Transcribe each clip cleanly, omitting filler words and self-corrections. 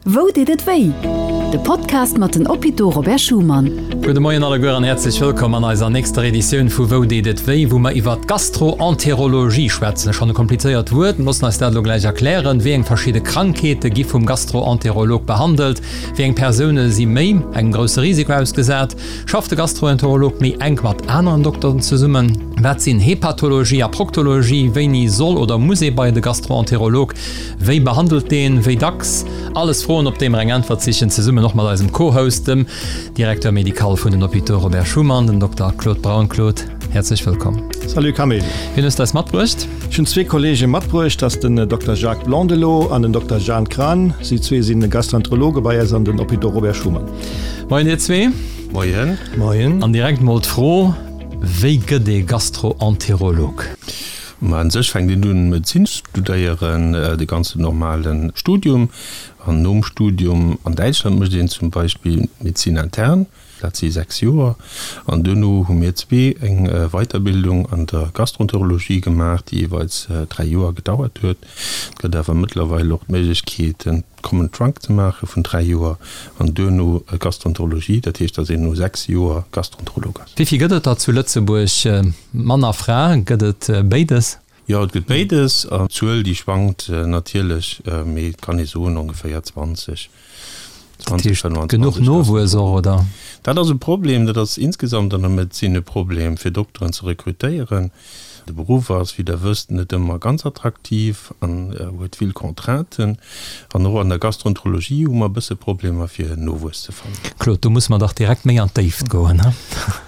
Wou deet et wéi? De Podcast mat den Hôpitaux Robert Schuman. Gudde Moien alleguer an häerzlech wëllkomm an eiser nächster Editioun vu Wou deet et wéi, wou mer iwwert d'Gastroenterologie schwätzen. Schonn e komplizéiert Wuert, mir loossen eis dat elo gläich erklären. Wéi eng verschidde Krankheete gi vum Gastroenterolog behandelt? Wéi eng Persoune si méi engem grousse Risiko ausgesat? Schafft de Gastroenterolog méi enk mat aneren Dokteren zesummen? Wat sinn Hepatologie a Proktologie? Wéini soll oder muss ee bei de Gastroenterolog? Wéi behandelt deen? Wéi dacks? Alles Froen, op déi mer eng Äntwert sichen, zesummen och mat eisem Co-Host, dem Directeur médical vun den Hôpitaux Robert Schuman, dem Dokter Claude Braun. Claude, häerzlech wëllkomm. Salut Camille. Wien hues de eis matbruecht? Ech hunn zwee Kollege matbruecht, dat ass den Dokter Jacques Blondelot an den Dokter Jeanne Kran. Si zwee sinn Gastroenterologe bei eis an den Hôpitaux Robert Schuman. Moien dir zwee. Moien. Moien. An direkt mol d'Fro, Wéi gëtt ee Gastroenterolog? Ma un sech fänkt een un Medezin studéieren, de ganzen normale Studium. An nom Studium an Däitschland mécht een zum Beispill Médecine interne, dat si 6 Joer. An duerno hu mir zwee eng Weiterbildung an der Gastroenterologie gemaach, déi jeeweils 3 Joer gedauert huet. Et gëtt awer mëttlerweil och d'Méiglechkeet en Common Trunk ze maache vun 3 Joer an duerno Gastroenterologie, dat heescht, datt een no 6 Joer Gastroenterolog ass. Wéi vill gëtt et der zu Lëtzebuerg? Mann a Fra, gëtt et béides? Jo, et gëtt béides. An d'Zuel, déi schwankt natierlech, mee et kann ee soen ongeféier 20, 20, 25. Genuch Nowuess och, oder? Dat ass e Problem. Dat ass insgesamt an der Medezin e Problem, fir Dokteren ze rekrutéieren. De Beruff ass, wéi Der wësst, net ëmmer ganz attraktiv an huet vill Contrainten. An och an der Gastroenterologie hu mer e bësse Problemer, fir Nowuess ze fannen. Claude, do musse mer dach direkt méi an d'Déift goen, he?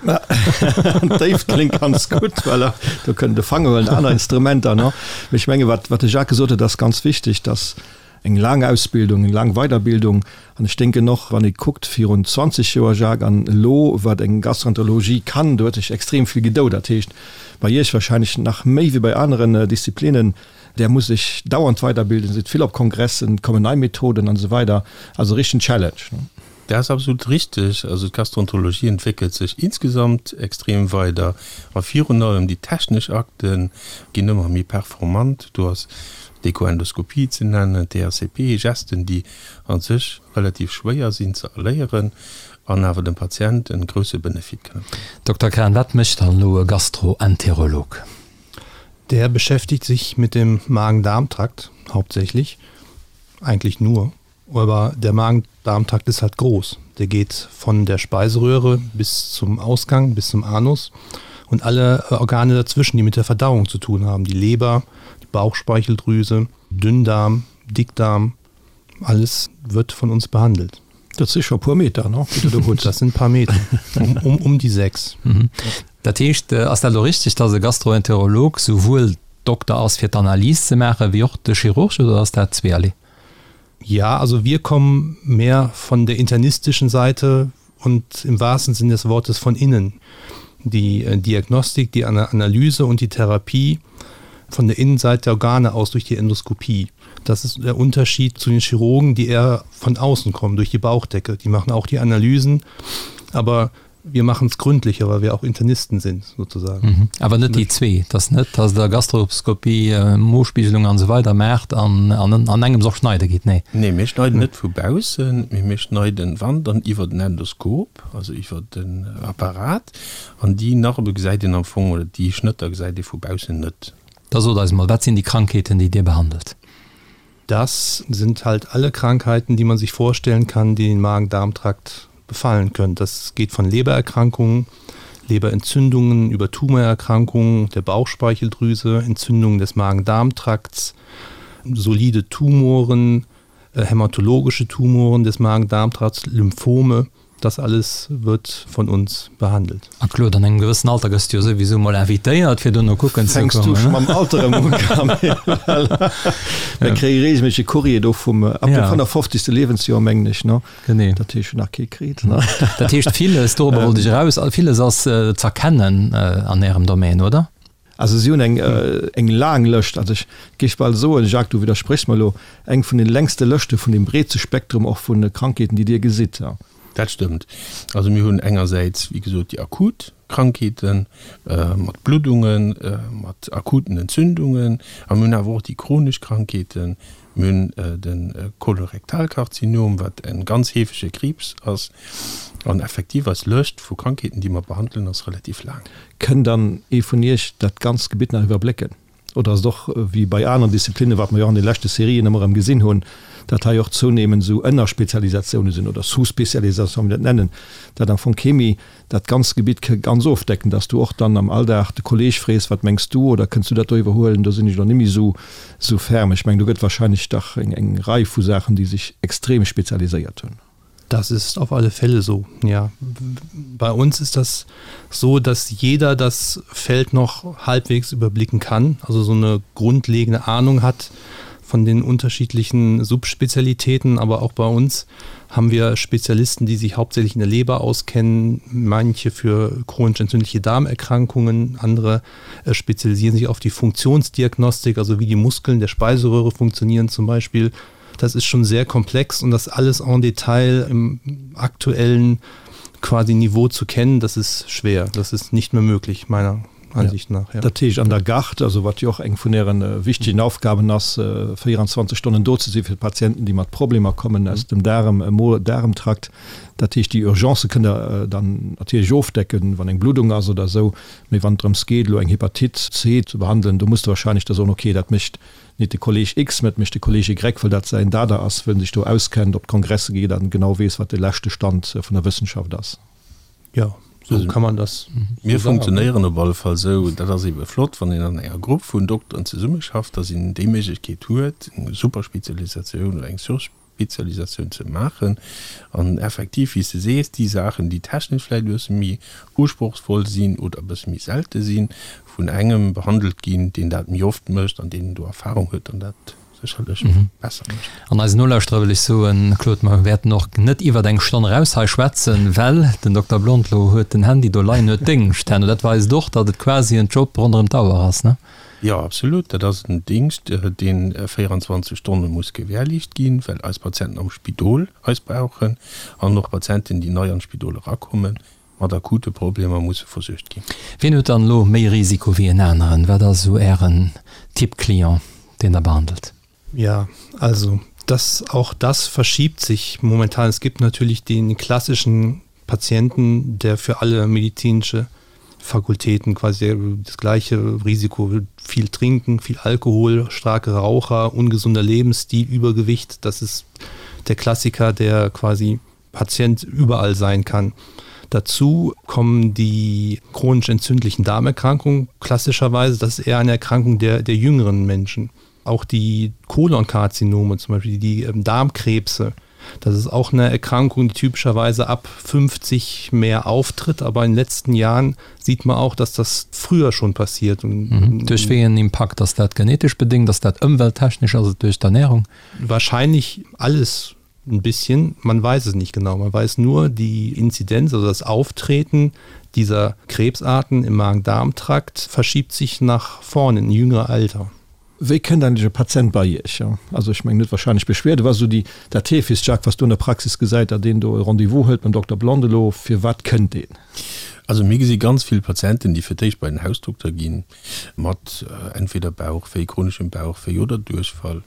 An d'Déift kléngt ganz gutt, voilà, do kënnt de Fanger huelen, aner Instrumenter, no. Mee ech menge wat de Jacques gesot huet, ass ganz wichteg, dass Eng laang Ausbildung, eng laang Weiderbildung. An ech denken och, wann ee kuckt virun 20 Joer, Jacques, an elo, wat eng Gastroenterologie kann, do huet sech extrem vill gedou. Dat heescht, bei Iech wahrscheinlech nach méi wéi bei aneren Disziplinen, Der musst Iech dauernd weiderbilden, sidd vill op Kongressen, et kommen nei Methoden an esou weider. Also e richtegen Challenge. Dat ass absolut richteg. Also d'Gastroenterologie entwéckelt sech insgesamt extrem weider a virun allem déi technesch Akte ginn ëmmer méi performant. Do ass d'Echoendoskopie ze nennen, d'ERCP, Gesten, déi a sech relativ schwéier sinn ze erléieren an awer dem Patient e grousse Benefit kënne bréngen. Dokter Kran, wat mécht dann elo e Gastroenterolog? Der beschäftigt sich mit dem Magen-Darm-Trakt hauptsächlich, eigentlich nur. Aber der Magen-Darm-Trakt ist halt groß. Der geht von der Speiseröhre bis zum Ausgang, bis zum Anus und alle äh, Organe dazwischen, die mit der Verdauung zu tun haben. Die Leber, die Bauchspeicheldrüse, Dünndarm, Dickdarm, alles wird von uns behandelt. Dat si scho puer Meter, no? Dat sinn paar Meter um, um, um déi 6. Mhm. Dat heescht, äh, ass dat elo richteg, dass e Gastroenterolog souwuel Dokter ass fir d'Analys ze maachen, wéi och de Chirurg, oder ass dat zweerlee? Ja, also wir kommen mehr von der internistischen Seite und im wahrsten Sinne des Wortes von innen. Die äh, Diagnostik, die Analyse und die Therapie von der Innenseite der Organe aus durch die Endoskopie. Das ist der Unterschied zu den Chirurgen, die eher von außen kommen, durch die Bauchdecke. Die machen auch die Analysen, aber wir machen es gründlicher, weil wir auch Internisten sind sozusagen. Mhm. Awer net déi zwee, dass net, dass der Gastroskopie, äh, Mospiegelung an esou weider maacht an, an, an engems och schneide gitt, nee? Nee, mir schneiden net vu baussen, mee mir schneiden, wann, dann iwwer den Endoskop, also iwwer den Apparat. An déi Narbe gesäit een am Fong, oder déi Schnëtter gesäit ee vu baussen net. Da sot eis mol, wat sinn déi Krankheeten, déi Dir behandelt? Das sind halt alle Krankheiten, die man sich vorstellen kann, die den Magen-Darm-Trakt befallen können. Das geht von Lebererkrankungen, Leberentzündungen über Tumorerkrankungen der Bauchspeicheldrüse, Entzündungen des Magen-Darm-Trakts, solide Tumoren, äh, hämatologische Tumoren des Magen-Darm-Trakts, Lymphome, Das alles wird von uns behandelt. A Claude, an engem gewëssen Alter gëss du jo souwisou mol invitéiert, fir dono kucken ze kommen. Fänks du scho mam Alter erëm un, Camille? Mir kréie reegelméisseg e Courrier do vum, ab dem 55. Liewensjoer, mengen ech, ne? Genee. Dat heescht, ech hunn nach kee kritt, ne? Dat heescht, villes, dorobber wollt ech eraus, villes ass z'erkennen an Ärem Domaine, oder? Also si hunn eng eng laang Lëscht, also ech géif bal soen, Jacques, du widderspréchs mer elo, eng vun den längste Lëschte vun deem breete Spektrum och vu Krankheeten, déi Dir gesitt. Dat stëmmt. Also mir hunn engersäits, wéi gesot, déi akut Krankheete mat Bluddungen, mat akuten Entzündungen a mir hunn awer och déi chronesch Krankheeten. Mir hunn de Kolorektalkarzinom, wat e ganz heefege Kriibs ass. An effektiv, eis Lëscht vu Krankheeten, déi mer behandelen, ass relativ laang. Kënnt dann ee vun Iech dat ganzt Gebitt nach iwwerblécken? Oder ass et och wéi bei aneren Disziplinnen, wat mer jo och an de leschte Serien ëmmer erëm gesinn hunn, dat hei och zounehmend esou Ënnerspezialisatiounen sinn oder Sous-spécialisations, wéi mir dat nennen, dat am Fong kee méi dat ganzt Gebitt ke ganz ofdecken, dass du och dann am Alldag de Kolleeg frees, wat mengs du oder kënns du dat do iwwerhuelen, do sinn ech elo net méi esou esou ferm. Ech mengen, do gëtt wahrscheinlech dach eng eng Rei vu Saachen, déi sech extrem spezialiséiert hunn. Das ist auf alle Fälle so, ja. Bei uns ist das so, dass jeder das Feld noch halbwegs überblicken kann, also so eine grundlegende Ahnung hat von den unterschiedlichen Subspezialitäten, aber auch bei uns haben wir Spezialisten, die sich hauptsächlich in der Leber auskennen, manche für chronisch entzündliche Darmerkrankungen, andere äh, spezialisieren sich auf die Funktionsdiagnostik, also wie die Muskeln der Speiseröhre funktionieren zum Beispiel. Das ist schon sehr komplex und das alles en Detail im aktuellen quasi Niveau zu kennen, das ist schwer. Das ist nicht mehr möglich meiner Ansicht nach. Ja. Dat heescht an der Garde, also wat jo och eng vun Ären wichtegen Aufgaben ass, 24 Stonnen do ze si fir d'Patienten, déi mat Problemer kommen aus dem Daarem, Mo-Daaremtrakt. Dat heescht, déi Urgencë kënnt Der dann natierlech ofdecken, wann eng Bluddung ass oder esou. Mee wann et drëms geet, elo eng Hepatite C ze behandelen, do musst Der wahrscheinlech da soen, okay, dat mécht nit de Kolleg X, mä et mécht de Kolleg Y, well dat säin Dada ass, wëll en sech do auskennt, op d'Kongresse geet an genau weess, wat de leschte Stand vun der Wëssenschaft ass. Jo, sou kann man das Mir funktionéieren op alle Fall sou. Dat ass eebe flott, wann een an enger Grupp vun Dokteren zesummeschafft, dass een déi Méiglechkeet huet, eng Superspezialisatioun oder eng Surspezialisatioun ze maachen. An effektiv, wéi s de sees, déi Saachen, déi technesch vläicht e bësse méi usprochsvoll sinn oder e bësse méi selte sinn, vun engem behandelt ginn, deen dat méi oft mécht an deen do Erfahrung huet an dat sécherlech besser mécht. An eisen Nolauschterer wëll ech soen, Claude, mer wäerten och net iwwert eng Stonn eraus hei schwätzen, well den Dokter Blondelot huet den Handy do leien, huet Déngscht herno. Dat weist och, datt et quasi en Job ronderëm d'Auer ass, ne? Jo, absolut. Dat ass en Dingscht, dee 24 Stonne muss gewährleescht ginn, well eis Patienten am Spidol eis brauchen an och Patienten, déi nei an d'Spidol erakommen, mat akute Problemer musse versuergt ginn. Wien huet dann elo méi Risiko wéi en aneren? Wat ass esou Ären Typ Client, deen Der behandelt? Ja, also das, auch das verschiebt sich momentan. Es gibt natürlich den klassischen Patienten, der für alle medizinische Fakultäten quasi das gleiche Risiko viel trinken, viel Alkohol, starke Raucher, ungesunder Lebensstil, Übergewicht, das ist der Klassiker, der quasi Patient überall sein kann. Dazu kommen die chronisch entzündlichen Darmerkrankungen klassischerweise, das ist eher eine Erkrankung der, der jüngeren Menschen. Auch die Kolonkarzinome zum Beispiel, die ähm, Darmkrebse, das ist auch eine Erkrankung, die typischerweise ab 50 mehr auftritt, aber in den letzten Jahren sieht man auch, dass das früher schon passiert. Und, mhm. Durch wéi en Impakt? Ass dat genetesch bedingt, ass dat ëmwelttechnesch, ass et duerch d'Ernährung? Wahrscheinlich alles ein bisschen, man weiß es nicht genau. Man weiß nur, die Inzidenz, also das Auftreten dieser Krebsarten im Magen-Darm-Trakt verschiebt sich nach vorne in jüngere Alter. Wéi kënnt eigentlech e Patient bei Iech? Also ech mengen, huet wahrscheinlech Beschwerde. Wat ass esou déi, dat heefegst, Jacques, wat s du an der Praxis gesäit, datt een do e Rendez-vous hëlt beim Dokter Blondelot? Fir wat kënnt deen? Also mir gesi ganz vill Patienten, déi fir d'éischt bei den Hausdokter ginn, mat entweder Bauchwéi, chroneschem Bauchwéi oder Duerchfall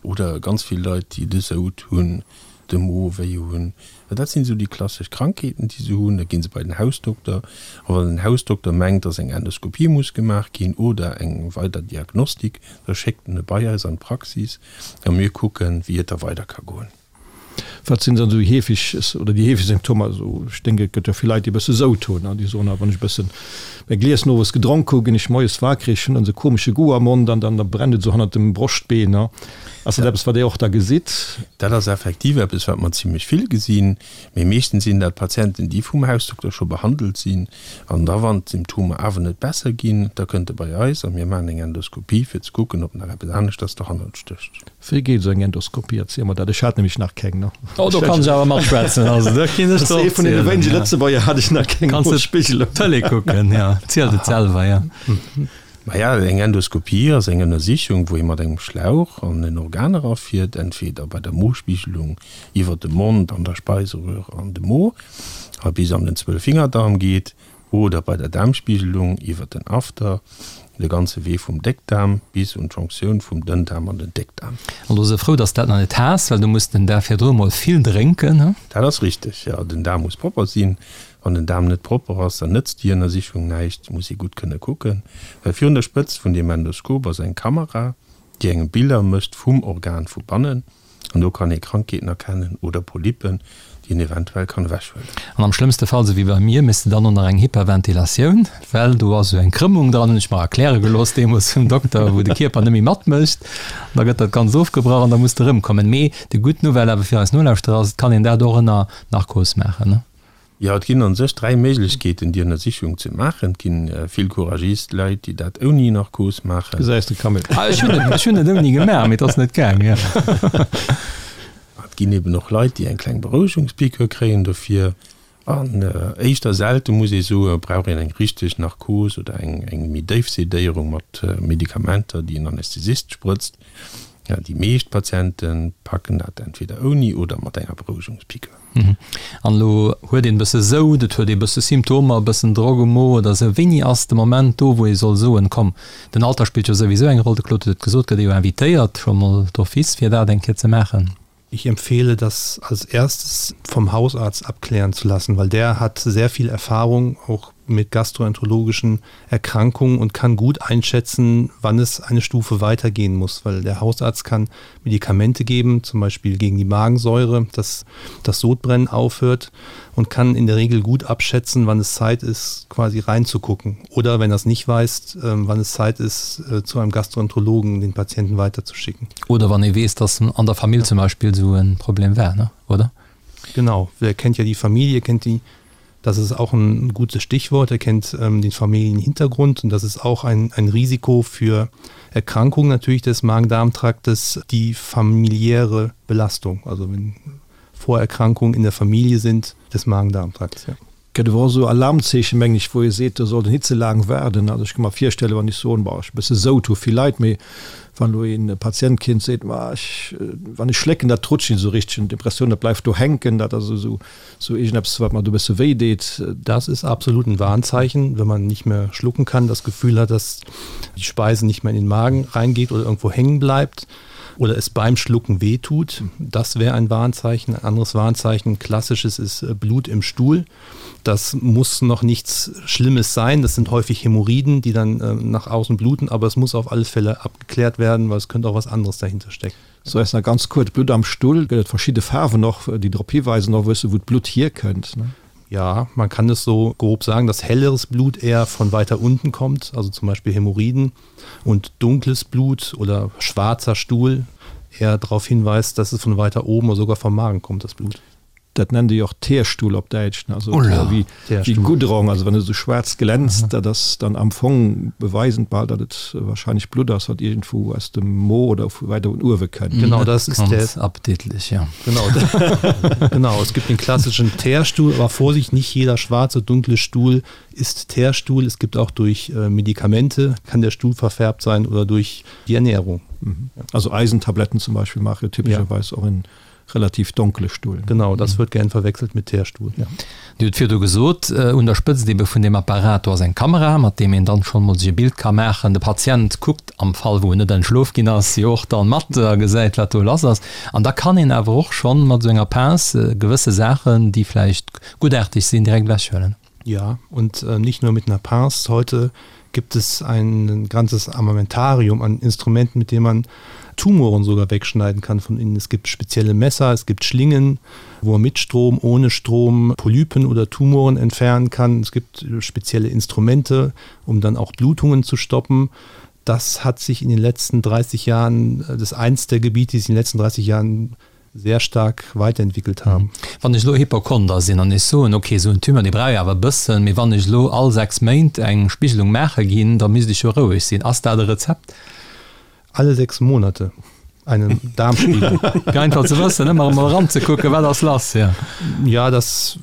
oder ganz vill Leit, déi de Soud hunn, de Mo wéi hunn. Dat sinn esou déi klassesch Krankheeten, déi se hunn. Da gi se bei den Hausdokter a wann den Hausdokter mengt, dass eng Endoskopie muss gemaach ginn oder eng weider Diagnostik, da schéckt en e bei eis an d'Praxis a mir kucken, wéi et da weider ka goen. Wat sinn dann esou déi heefeg oder déi heefeg Symptomer? Also ech denken, et gëtt jo vill Leit, déi e bësse Soud hunn an déi soen, ah wann ech e bëssen e Glies nowes gedronk hu, ginn ech moies wakereg, hunn dann esou e komesche Goût am Mond an dann da brennt et esou hannert dem Broschtbeen. Ass dat eppes, wat Dir och da gesitt? Dat ass effektiv eppes, wat mer zimlech vill gesinn. Mee meeschtens sinn dat Patienten, déi vum Hausdokter scho behandelt sinn. An da wann d'Symptomer awer net besser ginn, da kënnt e bei eis a mir maachen eng Endoskopie, fir ze kucken, ob nach eppes aneschters dohannert stécht. Wéi geet esou eng Endoskopie? Erziel mer dat, ech hat nämlech nach keng. Ne? Oh, do kann ech awer matschwätzen. Also, do kinn ech der Ee vun deene wéinege Lëtzebuerger hat ech nach keng. Kanns de Tëlee kucken, ja. Zielt et selwer, ja. Maja, eng Endoskopie ass eng Ënnersichung, wou ee mat engem Schlauch an en Organ erafiert, entweder bei der Mospiegelung iwwer de Mond an der Speiseröhre an de Mo a bis an den Zwölffingerdarm geet, oder bei der Daarmspiegelung iwwer den After, de ganze Wee vum Déckdaarm bis un d'Jonktioun vum Dënndaarm an den Déckdaarm. An do se frou, dass dat nach net has, well du muss den Dag virdru mol vill drénken, he? Dat ass richteg, jo. Den Daarm muss propper sinn. Wann den Daarm net propper ass, dann nëtzt déi Ënnersichung näischt. Muss ee gutt kënne kucken, well virun der Spëtzt vun deem Endoskop ass eng Kamera, déi engem Biller mécht vum Organ vu bannen. An do kann ee Krankheeten erkennen oder Polypen, déi een eventuell kann ewechhuelen. An am schlëmmste Fall, sou wéi bei mir, méchs de dann och nach eng Hyperventilatioun, well do ass esou eng Krëmmung dran, hunn ech mer erkläre gelooss deemools vum Dokter, wou de Kierper net méi matmécht. An da gëtt dat Ganzt ofgebrach an da muss de erëmkommen. Mee déi gutt Nouvelle awer fir eis Nolauschterer ass, et kann een dat och ënner Narkos maachen, ne? Jo, et ginn an sech 3 Méiglechkeeten déi Ënnersichung ze maachen. Et ginn vill couragist Leit déi dat ouni Narkos maachen. Gesäis de Camille. Ah ech hunn et, ech hunn et ouni gemaach, mee et ass net gaang, jo. Et ginn eben och Leit déi eng kleng Berouegungspiqûre kréien dofir. An éischter selte muss ee soen, brauch een eng richteg Narkos oder eng eng méi déif Sedéierung mat Medikamenter déi en Anästhesist sprëtzt. Déi meescht Patiente packen dat entweder ouni oder mat enger Berouegungspiqûre. An elo huet een e bësse Soud, et huet ee bësse Symptomer, e bëssen Drock um Mo oder esou. Wéini ass de Moment do, wou ee soll soen, komm, den Alter spillt jo souwisou eng Roll, de Claude huet et gesot, gëtt ee jo invitéiert scho mol d'office fir dat eng Kéier ze maachen. Ich empfehle das als erstes vom Hausarzt abklären zu lassen, weil der hat sehr viel Erfahrung auch mit gastroenterologischen Erkrankungen und kann gut einschätzen, wann es eine Stufe weitergehen muss, weil der Hausarzt kann Medikamente geben, zum Beispiel gegen die Magensäure, dass das Sodbrennen aufhört und kann in der Regel gut abschätzen, wann es Zeit ist, quasi reinzugucken oder wenn das nicht weiß, ähm, wann es Zeit ist, äh, zu einem Gastroenterologen den Patienten weiterzuschicken. Oder wann ee weess, dass an der Famill zum Beispill esou e Problem war, ne? Oder? Genau, wer kennt ja die Familie, kennt die Das ist auch ein gutes Stichwort. Er kennt ähm, den Familienhintergrund und das ist auch ein, ein Risiko für Erkrankungen natürlich des Magen-Darm-Traktes, die familiäre Belastung, also wenn Vorerkrankungen in der Familie sind des Magen-Darm-Trakts. Ja. Gëtt awer och esou Alarmzeechen, mengen ech, wou ee seet, do sollt een nit ze laang waarden. Also ech ka mer virstellen, wann ech soen, boah, ech hu e bësse Soud, hu vill Leit, mee wann elo een Patient kinnt seet, ma ech, wann ech schlécken, dat rutscht net esou richteg, hunn d'Impressioun, dat bleift do hänken, dat ass esou esou iergendeppes, wat mer do e bësse wéi deet. Das ist absolut ein Warnzeichen, wenn man nicht mehr schlucken kann, das Gefühl hat, dass die Speise nicht mehr in den Magen reingeht oder irgendwo hängen bleibt oder es beim Schlucken weh tut. Das wäre ein Warnzeichen. Ein anderes Warnzeichen, klassisches ist äh, Blut im Stuhl. Das muss noch nichts Schlimmes sein. Das sind häufig Hämorrhoiden, die dann äh, nach außen bluten, aber es muss auf alle Fälle abgeklärt werden, weil es könnte auch was anderes dahinter stecken. So eis nach ganz kuerz, Blutt am Stull, gëtt et verschidde Faarwen och, déi drop hiweisen och wësse wou d'Blutt hierkënnt, ne? Ja, man kann es so grob sagen, dass helleres Blut eher von weiter unten kommt, also zum Beispiel Hämorrhoiden und dunkles Blut oder schwarzer Stuhl eher darauf hinweist, dass es von weiter oben oder sogar vom Magen kommt das Blut. Dat nennt ee jo och Teerstull op Däitsch, also wéi Goudron, also wann e sou schwaarz glänzt, dat ass dann am Fong beweisend bal, datt et wahrscheinlech Blutt ass, wat iergendwou aus dem Mo oder vu weider un uewe kënnt. Genau, das ist der Ganz appetitlich, ja. Genau, genau, es gibt den klassischen Teerstuhl, aber Vorsicht, nicht jeder schwarze, dunkle Stuhl ist Teerstuhl. Es gibt auch durch Medikamente kann der Stuhl verfärbt sein oder durch die Ernährung. Also Eisentabletten zum Beispiel maache typescherweis och en relativ donkele Stuhl. Genau, das wird gern verwechselt mit Teerstuhl, ja. Dir hutt virdu gesot, un der Spëtzt ebe vun deem Apparat, do ass eng Kamera, mat deem een dann schonn emol sech e Bild ka maachen. De Patient kuckt, am Fall wou en net entschlof ginn ass, jo och dann mat a gesäit, wat do lass ass. An da kann een awer och schonn mat esou enger Pince gewësse Saachen, déi vläicht guttaarteg sinn, direkt ewechhuelen. Ja, und äh, nicht nur mit einer Pince. Heute gibt es ein ganzes Armamentarium an Instrumenten, mit dem man Tumoren sogar wegschneiden kann von innen. Es gibt spezielle Messer, es gibt Schlingen, wo man mit Strom, ohne Strom Polypen oder Tumoren entfernen kann. Es gibt spezielle Instrumente, um dann auch Blutungen zu stoppen. Das hat sich in den letzten 30 Jahren äh, das eins der Gebiete, die sich in den letzten 30 Jahren sehr stark weiterentwickelt haben. Wann ech elo Hypochonder sinn an ech soen, ok, esou en Tumeur, dee brauch jo awer e bëssen, mee wann ech elo all 6 Méint eng Spigelung maache ginn, da misst ech jo roueg sinn. Ass dat e Rezept? Alle 6 Monate eine Darmspiegelung. Fir einfach ze wëssen, ëmmer emol eranzekucken, wat ass lass, ja. Ja, das,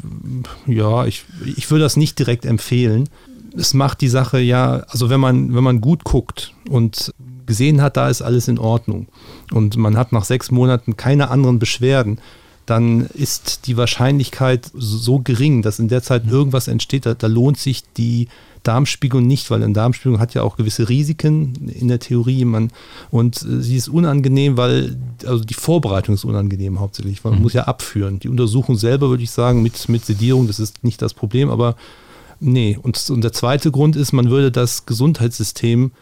ja, ich, ich würde das nicht direkt empfehlen. Es macht die Sache ja also wenn man wenn man gut guckt und gesehen hat, da ist alles in Ordnung und man hat nach sechs Monaten keine anderen Beschwerden, dann ist die Wahrscheinlichkeit so gering, dass in der Zeit irgendwas entsteht, da, da lohnt sich die Darmspiegelung nicht, weil eine Darmspiegelung hat ja auch gewisse Risiken in der Theorie man und äh, sie ist unangenehm, weil also die Vorbereitung ist unangenehm hauptsächlich, man mhm. muss ja abführen. Die Untersuchung selber würde ich sagen mit, mit Sedierung, das ist nicht das Problem, aber nee und, und der zweite Grund ist, man würde das Gesundheitssystem,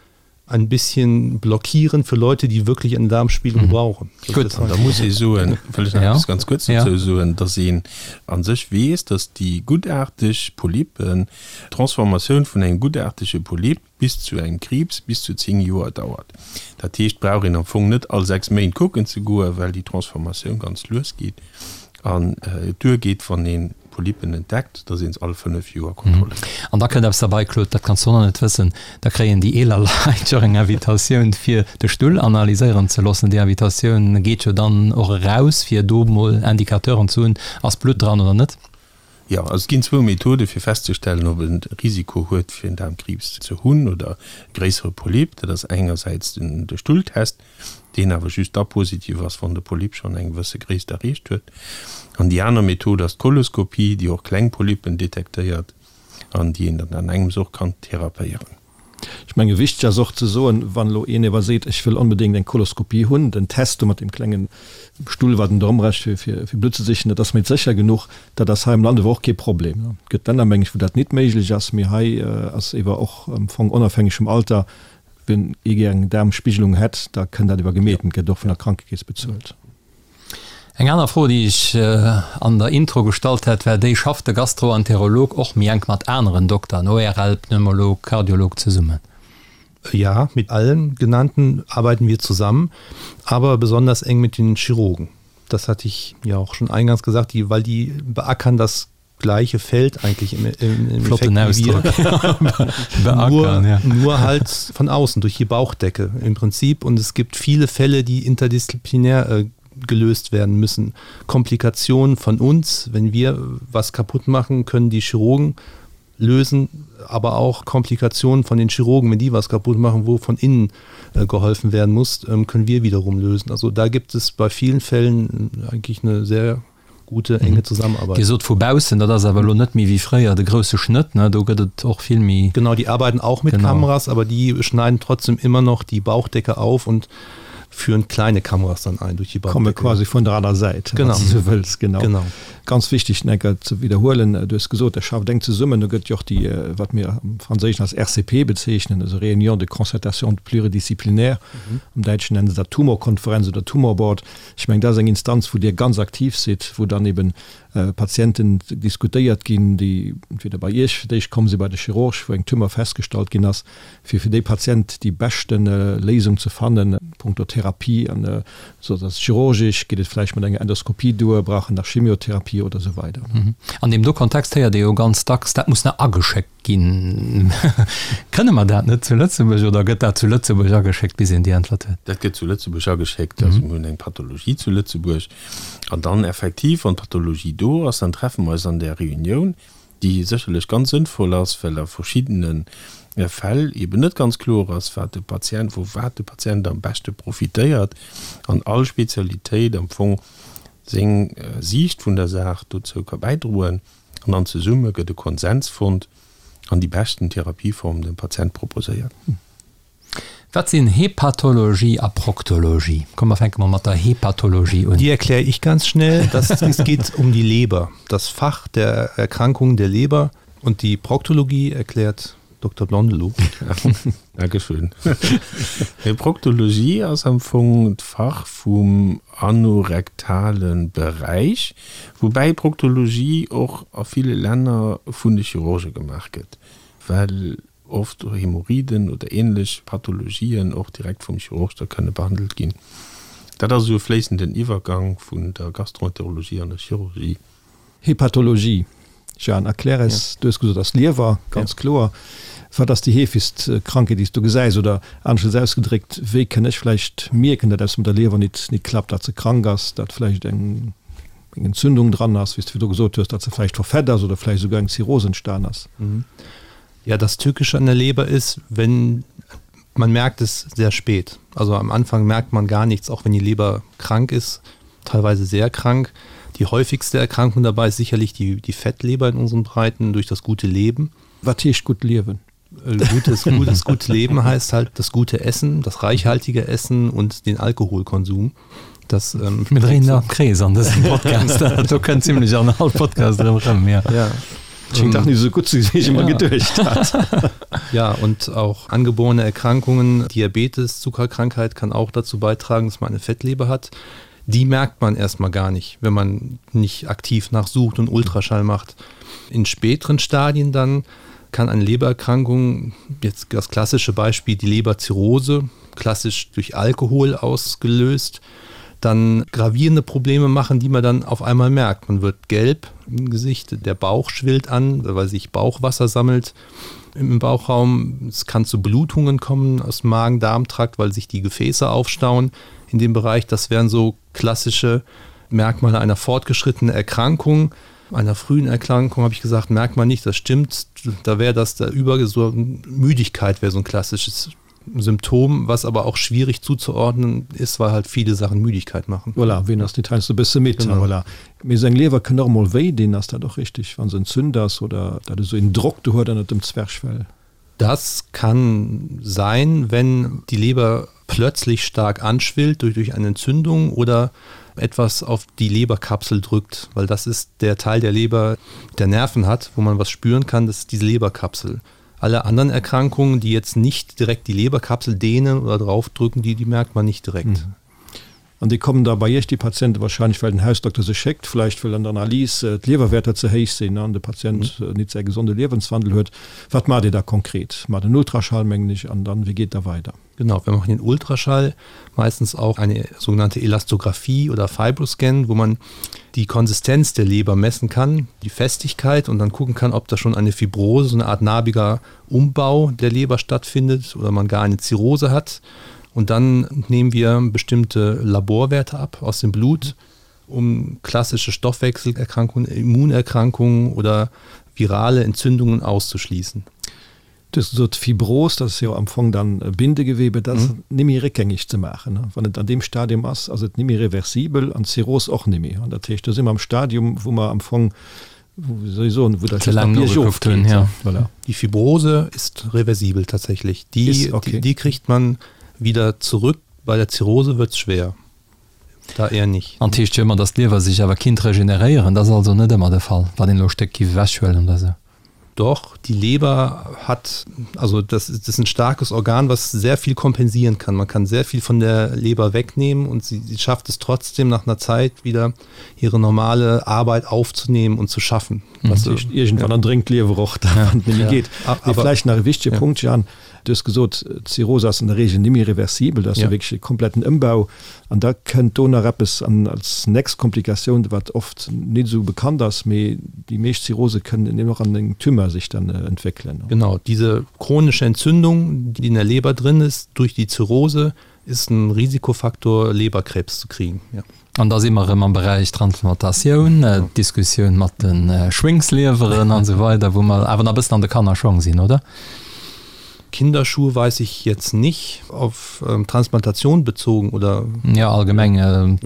ein bisschen blockieren für Leute, die wirklich eine Darmspiegelung mhm. brauchen. Gut, da muss ich soen, wëll ech nach eppes ganz kuerz dozou soen, dass een a sech weess, dass déi guttaarteg Polypen, d'Transformatioun vun engem guttaartege Polyp bis zu engem Kriibs bis zu 10 Joer dauert. Dat heescht, brauch een am Fong net all 6 Méint kucken ze goen, well déi Transformatioun ganz lues geet an et duergeet, wann een Polypen entdeckt, dass een se all 5 Joer kontrolléiert. An da kënnt eppes derbei, Claude, dat kanns du och nach net wëssen, da kréien déi eeler Leit jo och eng Invitatioun fir de Stull analyséieren ze loossen. Déi Invitatioun geet jo dann och eraus, fir do mol Indicateuren ze hunn, ass Blutt dran oder net. Jo, also et ginn zwou Methode fir festzestellen, ob en Risiko huet fir en Daarmkriibs ze hunn oder e gréissere Polyp. Dat ass engersäits den de Stulltest, deen awer just da positiv ass, wann de Polyp schonn eng gewësse Gréisst erreecht huet. An déi aner Method ass d'Koloskopie, déi och kleng Polypen detektéiert an déi een dann an engems och kann therapéieren. Ech menge wichteg ass och ze soen, wann elo een ewer seet, ech wëll onbedéngt eng Koloskopie hunn, den Test do mat deem klengen Stull, wat en do ëmrecht fir fir Blutt ze sichen, dat ass méi sécher genuch. Dat ass hei am Land ewer och kee Problem. Et gëtt Länner, meng ech, wou dat nit méiglech ass, mee hei ass ewer och am Fong onofhängeg vum Alter Wien ee gär eng Daarmspigelung hätt, da kënn dat iwwer gemeet, gëtt och vun der Krankekeess bezuelt. Eng aner Fro, déi ech an der Intro gestallt hat, war déi, Schafft de Gastroenterolog och méi enk mat aneren Dokteren, ORL, Pneumolog, Kardiolog, zesummen? Ja, mit allen genannten arbeiten wir zusammen, aber besonders eng mit den Chirurgen. Das hatte ich ja auch schon eingangs gesagt, die, weil die beackern das gleiche Feld eigentlich im, im, im Flotten Ausdruck. nur, ja. nur halt von außen durch die Bauchdecke im Prinzip und es gibt viele Fälle, die interdisziplinär äh, gelöst werden müssen. Komplikationen von uns, wenn wir was kaputt machen, können die Chirurgen lösen, aber auch Komplikationen von den Chirurgen, wenn die was kaputt machen, wo von innen äh, geholfen werden muss, ähm, können wir wiederum lösen. Also da gibt es bei vielen Fällen äh, eigentlich eine sehr gute enge Zusammenarbeit. Dir sot vu baussen, dat ass awer elo net méi wéi fréier de grousse Schnëtt, ne? Do gëtt et och vill méi. Genau, die arbeiten auch mit genau. Kameras, aber die schneiden trotzdem immer noch die Bauchdecke auf und führen kleine Kameras dann ein durch die Bauchdecke. Komme quasi vun der aner Säit, genau. wann s du esou wëlls. Genau. Genau. Ganz wichteg, Necker, ze widderhuelen, du hues gesot, Der schafft enk zesummen. Do gëtt jo och déi, wat mir am Franséischen als RCP bezeechnen, also Réunion de concertation pluridisciplinaire, am Däitschen nennen se dat Tumorkonferenz oder Tumorboard. Ech mengen, dat ass eng Instanz, wou Dir ganz aktiv sidd, wou dann eben Patienten diskutéiert ginn, déi entweder bei Iech fir d'éischt komm sinn, bei de Chirurg, wou eng Tumeur festgestallt ginn ass, fir fir dee Patient déi beschte Léisung ze fannen punkto Therapie. An esou ass et chirurgisch, geet et vläicht mat enger Endoskopie duer, brauch en nach Chemiotherapie oder esou weider. An deem do Kontext héiert ee jo ganz dacks, dat muss nach ageschéckt Ginn. Kënne mer dat net zu Lëtzebuerg oder gëtt dat zu Lëtzebuerg ageschéckt, bis een déi Äntwert huet? Dat gëtt zu Lëtzebuerg ageschéckt. Also mir hunn eng Pathologie zu Lëtzebuerg. An dann effektiv, wann d'Pathologie do ass, dann treffe mer eis an där Reunioun, déi sécherlech ganz sënnvoll ass, well a verschiddene Fäll eeben net ganz kloer ass, wat de Patient, vu wat de Patient am beschte profitéiert an all Spezialitéit am Fong seng Siicht vun der Saach dozou ka bäidroen. An dann zesumme gëtt e Konsens fonnt an déi beschten Therapieform dem Patient proposéiert. Wat sinn Hepatologie a Proktologie? Komm mer fänke mol mat der Hepatologie un. Die erkläre ich ganz schnell. Das es geht um die Leber, das Fach der Erkrankungen der Leber und die Proktologie erklärt Dokter Blondelot. Dankeschön. Proktologie ass am Fong d'Fach vum anorektale Beräich, woubäi Proktologie och a ville Länner vun de Chirurge gemaach gëtt, well oft Hämorrhoiden oder ähnlech Pathologien och direkt vum Chirurg da kënne behandelt ginn. Dat ass esou e fléissenden Iwwergang vun der Gastroenterologie an der Chirurgie. Hepatologie, Jeanne, erklär eis, du hues gesot, ass Liewer, ganz kloer. Wat ass déi heefegst Krankheet, déi s du gesäis? Oder aneschtens ausgedréckt, wéi kënn ech vläicht mierken, datt eppes mat der Liewer nit nit klappt, datt se krank ass, datt vläicht eng eng Entzündung dran ass, wéi s du virdru gesot hues, datt se vläicht verfett ass oder vläicht esouguer eng Zirrhos entstan ass? Ja, das Tückische an der Leber ist, wenn man merkt es sehr spät. Also am Anfang merkt man gar nichts, auch wenn die Leber krank ist, teilweise sehr krank. Die häufigste Erkrankung dabei ist sicherlich die, die Fettleber in unseren Breiten durch das gute Leben. Was heißt gut leben? Äh, gutes, gutes, gutes Leben heißt halt das gute Essen, das reichhaltige Essen und den Alkoholkonsum. Das, ähm, Mir dréinen am Krees an dësem Podcast. Do kënnt ziemlech an all Podcast erëm rëm, ja. Ja. Schéngt dach net esou gutt ze sinn, wéi ech ëmmer geduecht hat. Ja, und auch angeborene Erkrankungen, Diabetes, Zuckerkrankheit kann auch dazu beitragen, dass man eine Fettleber hat. Die merkt man erstmal gar nicht, wenn man nicht aktiv nachsucht und Ultraschall macht. In späteren Stadien dann kann eine Lebererkrankung, jetzt das klassische Beispiel die Leberzirrhose, klassisch durch Alkohol ausgelöst, dann gravierende Probleme machen, die man dann auf einmal merkt. Man wird gelb im Gesicht, der Bauch schwillt an, weil sich Bauchwasser sammelt im Bauchraum. Es kann zu Blutungen kommen aus dem Magen-Darm-Trakt, weil sich die Gefäße aufstauen in dem Bereich. Das wären so klassische Merkmale einer fortgeschrittenen Erkrankung. Einer frühen Erkrankung habe ich gesagt, merkt man nicht, das stimmt. Da wäre das der über so Müdigkeit wäre so ein klassisches Symptom, was aber auch schwierig zuzuordnen ist, weil halt viele Sachen Müdigkeit machen. Voilà, ween ass net heiansdo e bësse midd? Voilà. Mee seng Liewer kënnt och emol wéi dinn, ass dat och richteg, wa se entzünt ass oder dat esou een Drock do huet ënnert dem Zwerchfell? Das kann sein, wenn die Leber plötzlich stark anschwillt durch, durch eine Entzündung oder etwas auf die Leberkapsel drückt, weil das ist der Teil der Leber, der Nerven hat, wo man was spüren kann, das ist diese Leberkapsel. Alle anderen Erkrankungen, die jetzt nicht direkt die Leberkapsel dehnen oder draufdrücken, die, die merkt man nicht direkt. Mhm. An déi kommen da bei Iech, déi Patienten, wahrscheinlech well den Hausdokter se schéckt, vläicht well an der Analys d'Liewerwäerter ze héich sinn an de Patient nit säi gesonde Liewenswandel huet. Wat maacht Dir da konkret? Maacht en Ultraschall, mengen ech, an dann, wéi geet da weider? Genau, wir machen den Ultraschall, meistens auch eine sogenannte Elastographie oder Fibroscan, wo man die Konsistenz der Leber messen kann, die Festigkeit und dann gucken kann, ob da schon eine Fibrose, so eine Art narbiger Umbau der Leber stattfindet oder man gar eine Zirrhose hat. Und dann nehmen wir bestimmte Laborwerte ab aus dem Blut, um klassische Stoffwechselerkrankungen, Immunerkrankungen oder virale Entzündungen auszuschließen. Du hues gesot, Fibros, dat ass jo am Fong dann Bindegewebe, dat ass nimmi réckgängeg ze maachen. Wann et an deem Stadium ass, ass et nimmi reversibel an d'Zirrhos och nimmi. An dat heescht, do si mer am Stadium, wou mer am Fong, wéi soll ech soen, wou dat Ze laang nogekuckt hunn, ja. Voilà. Die Fibrose ist reversibel tatsächlich. Die, ist, okay. die, die kriegt man wieder zurück. Bei der Zirrhose wird es schwer. Da eher nicht. An et heescht jo ëmmer, datt d'Liewer sech awer kinnt regeneréieren. Dat ass also net ëmmer de Fall, wann een elo e Stéck giff ewechhuelen oder sou. Doch, die Leber hat, also das, das ist ein starkes Organ, was sehr viel kompensieren kann. Man kann sehr viel von der Leber wegnehmen und sie, sie schafft es trotzdem nach einer Zeit wieder ihre normale Arbeit aufzunehmen und zu schaffen. Mhm. Was irgendwann ja. dringt Leber och ja. ja. geht. Aber vielleicht nach e wichtige ja. Punkt Jan, du hues gesot Zirrhose ass an der Regel nimmi reversibel, dat ass ja. wierklech e kompletten Ëmbau. An da kënnt do nach eppes an als nächst Komplikatioun, wat oft nit esou bekannt ass, mee déi meescht Zirrhose kënnen eben och an eng Tumeur sich dann entwéckelen. Genau, diese chronische Entzündung, die in der Leber drin ist, durch die Zirrhose, ist ein Risikofaktor, Leberkrebs zu kriegen. Ja. An da si mer erëm am Beräich Transplantatioun, d'Diskussioun mat de Schwéngslieweren an esou weider, wou mer awer nach e bëssen an de Kannerschong sinn, oder? Kinderschuhe weiß ich jetzt nicht, auf Transplantation bezogen oder? Jo, allgemeng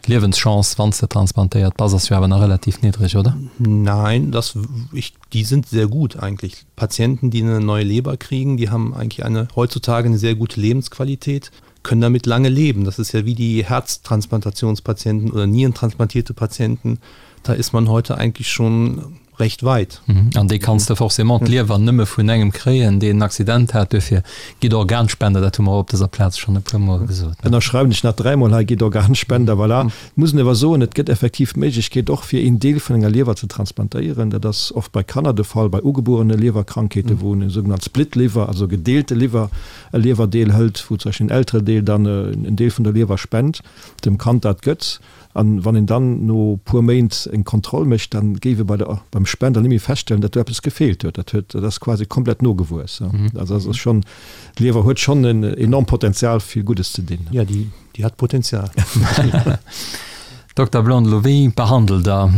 d'Liewenschance, wann s de transplantéiert bass, ass jo awer nach relativ niddreg, oder? Nein, das, ich, die sind sehr gut eigentlich. Patienten, die eine neue Leber kriegen, die haben eigentlich eine heutzutage eine sehr gute Lebensqualität. können damit lange leben. Das ist ja wie die Herztransplantationspatienten oder nierentransplantierte Patienten. Da ist man heute eigentlich schon recht weit. Mhm. An déi kanns de forcément d'Liewer nëmme vun engem kréien, deen en Accident hat. Duerfir gitt Organspender, dat hu mer och op dëser Plaz schonn e puermol gesot. Ënnerschreiwen ech nach dräimol hei, gitt Organspender, voilà. Et muss een awer soen, et gëtt effektiv d'Méiglechkeet och fir een Deel vun enger Liewer ze transplantéieren. Dat ass oft bei Kanner de Fall, bei ugebuerene Liewerkrankheeten, wou en sougenannt Split Liver, also gedeelte Liwwer, e Liewerdeel hëlt, wou zum Beispill en Elterendeel dann en Deel vun der Liewer spent, dem Kand dat gëtt, an wann een dann no puer Méint eng Kontroll mécht, dann géif ee bei der, beim Spender net méi feststellen, datt do eppes gefeelt huet. Dat huet, dat ass quasi komplett nogewuess. Also dat ass schonn, d'Liewer huet schonn en enormt Potenzial fir Guddes ze dinn. Jo, déi, déi hat Potenzial. Dokter Blondelot, wéi behandelt Der?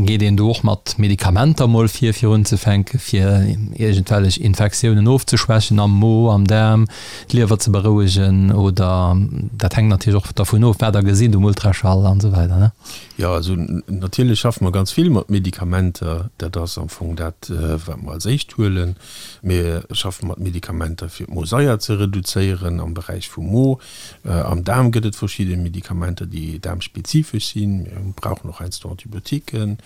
Geet een do och mat Medikamenter mol vir, fir unzefänken, fir iergendwellech Infektiounen ofzeschwächen am Mo, am Daarm, d'Liewer ze berouegen? Oder dat hänkt natierlech och dervun of, wat Der gesitt um Ultraschall an esou weider, ne? Jo, also natierlech schaffe mer ganz vill mat Medikamenter. Dat ass am Fong dat, wat mer als éischt huelen. Mir schaffe mat Medikamenter, fir d'Mosaier ze reduzéieren am Beräich vum Mo. Am Daarm gëtt et verschidde Medikamenter, déi daarmspezifesch sinn. Mir brauchen och heiansdo Antibiotiquen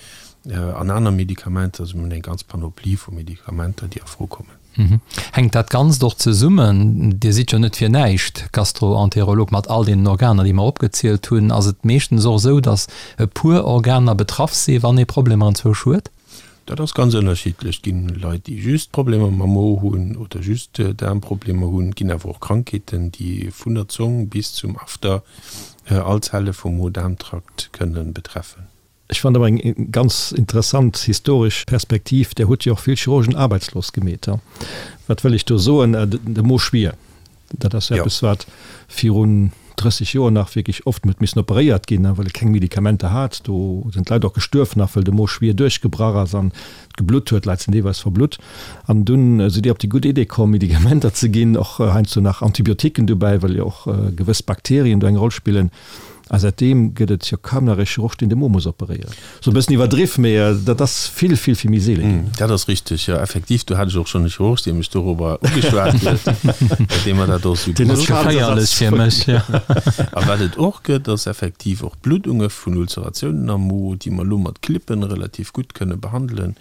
an aner Medikamenter. Also mir hunn eng ganz Panoplie vu Medikamenter, déi a Fro kommen. Hänkt dat Ganzt och zesummen? Dir sidd jo net fir näischt Gastroenterolog mat all deenen Organer, déi mer opgezielt hunn. Ass et meeschtens och esou, datt e puer Organer betraff si wann ee Problemer anzwousch huet? Dat ass ganz ënnerschiddlech. Et ginn Leit, déi just Problemer mam Mo hunn oder just Daarmproblemer hunn. Et ginn awer och Krankheeten, déi vun der Zong bis zum After all Zelle vum Mo-Daarm-Trakt kënne betreffen. Ech fannen awer eng ganz interessant historesch Perspektiv. Där hutt jo och vill Chirurgen aarbeitslos gemeet. Wat wëll ech do soen? De Mo schwier. Dat ass eppes, wat virun 30 Joer nach wierklech oft huet missen operéiert ginn, well e keng Medikamenter hat. Do sinn d'Leit och gestuerf nach, well de Mo schwier duerchgebrach ass an et geblutt huet. D'Leit sinn deelweis verblutt. An dunn sidd Dir op déi gutt Idee komm, Medikamenter ze ginn, och heiansdo nach Antibiotiquen dobäi, well jo och gewëss Bakterien do eng Roll spillen. A säitdeem gëtt et jo kaum nach e Chirurg, deen de Mo muss operéieren. Sou e bëssen iwwerdriff, mee dat ass vill, vill, vill méi seele ginn. Dat ass richteg, jo, effektiv. Do hat ech och schonn e Chirurg, dee mech dorobber ugeschwat huet, dee mer dat och esou gesot huet. Geféierlech fir mech, jo. A wat et och gëtt, ass effektiv och Bluddunge vun Ulceratiounen am Mo, déi mer elo mat Clippen relativ gutt kënne behandelen,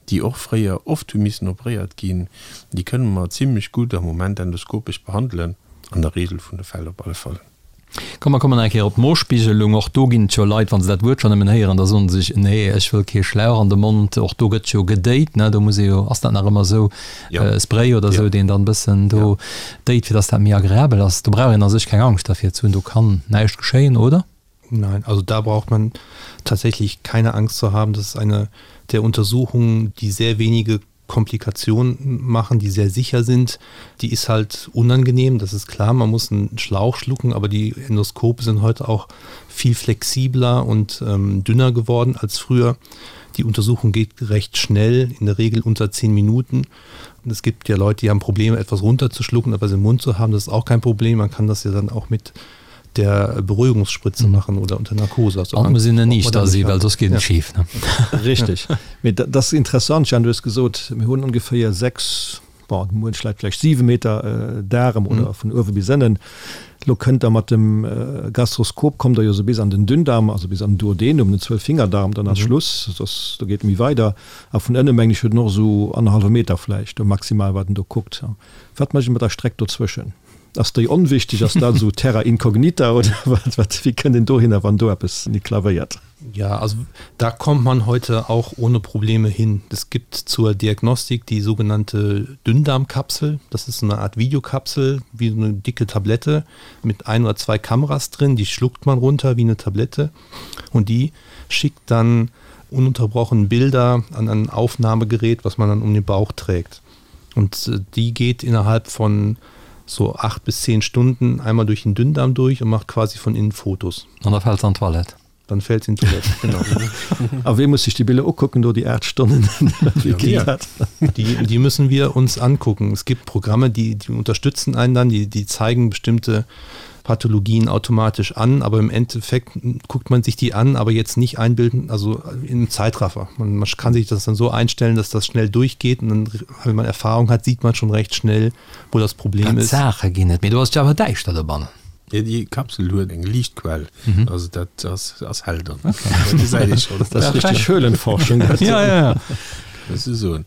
déi och fréier oft hu missen operéiert ginn. Déi kënne mer zimlech gutt am Moment endoskopesch behandelen, an der Regel vun de Fäll op alle Fall. Komm, mer kommen nach eng Kéier op d'Mospiegelung. Och do ginn et jo Leit, wa se dat Wuert schonn nëmmen héieren, da soen se sech, Nee, ech wëll kee Schlauch an de Mond. Och do gëtt jo gedéit, ne? Do muss ee jo, ass dat nach ëmmer esou, e Spray oder esou, deen dann e bëssen do déit, fir dass dat méi agreabel ass. Do brauch een a sech keng Angscht dervir ze hunn, do kann näischt geschéien, oder? Nein, also da braucht man tatsächlich keine Angst zu haben. Das ist eine der Untersuchungen, die sehr wenige Komplikationen machen, die sehr sicher sind, die ist halt unangenehm, das ist klar, man muss einen Schlauch schlucken, aber die Endoskope sind heute auch viel flexibler und ähm, dünner geworden als früher. Die Untersuchung geht recht schnell, in der Regel unter zehn Minuten. Und es gibt ja Leute, die haben Probleme, etwas runterzuschlucken, etwas im Mund zu haben, das ist auch kein Problem. Man kann das ja dann auch mit der Beruhigungsspritze mhm. machen oder unter Narkose. Also An muss een nicht da si, well soss geet et schief. Ne? Richtig. Mee dat ass interessant, Jeanne, du hues gesot, mir hunn ongeféier 6, bon, muench Leit vläicht 7 Meter Daarem oder vun uewe bis ënnen. Lo kënnt der mat dem Gastroskop, kommt der jo sou bis an den Dünndarm, also bis an den Duodenum, den Zwölffingerdarm, dann ass Schluss, soss do geet et méi weider. A vun ënne mengen ech huet en och esou annerhallwe Meter vläicht do maximal, wat en do kuckt. Wat mécht e mat der Streck dozwëschen? Ass déi onwichtig? Ass dat esou terra incognita oder wat, wat, wéi kënnt een dohinner, wann do eppes nit klavéiert? Ja, also da kommt man heute auch ohne Probleme hin. Es gibt zur Diagnostik die sogenannte Dünndarmkapsel. Das ist so eine Art Videokapsel, wie so eine dicke Tablette mit ein oder zwei Kameras drin. Die schluckt man runter wie eine Tablette und die schickt dann ununterbrochen Bilder an ein Aufnahmegerät, was man dann um den Bauch trägt. Und äh, die geht innerhalb von so acht bis zehn Stunden einmal durch den Dünndarm durch und macht quasi von innen Fotos. An da fällt an d'Toilette. Dann fällt in d'Toilette, genau. A wee muss sech déi Biller ukucken do, déi 8 Stonnen? Wéi geet dat? Die, die müssen wir uns angucken. Es gibt Programme, die, die unterstützen einen dann, die, die zeigen bestimmte Pathologien automatisch an, aber im Endeffekt guckt man sich die an, aber jetzt nicht einbilden, also im Zeitraffer. Man, man kann sich das dann so einstellen, dass das schnell durchgeht und dann, wenn man Erfahrung hat, sieht man schon recht schnell, wo das Problem ist. Saache ginn et, mee do ass et jo awer däischter dobannen. Jo, déi Kapsel huet eng Liichtquell, also dat ass, ass hell dann. Dat gesäit ee schonn. Dat ass richteg Höhlenforschung dat. Ja, ja, ja. Muss ech soen.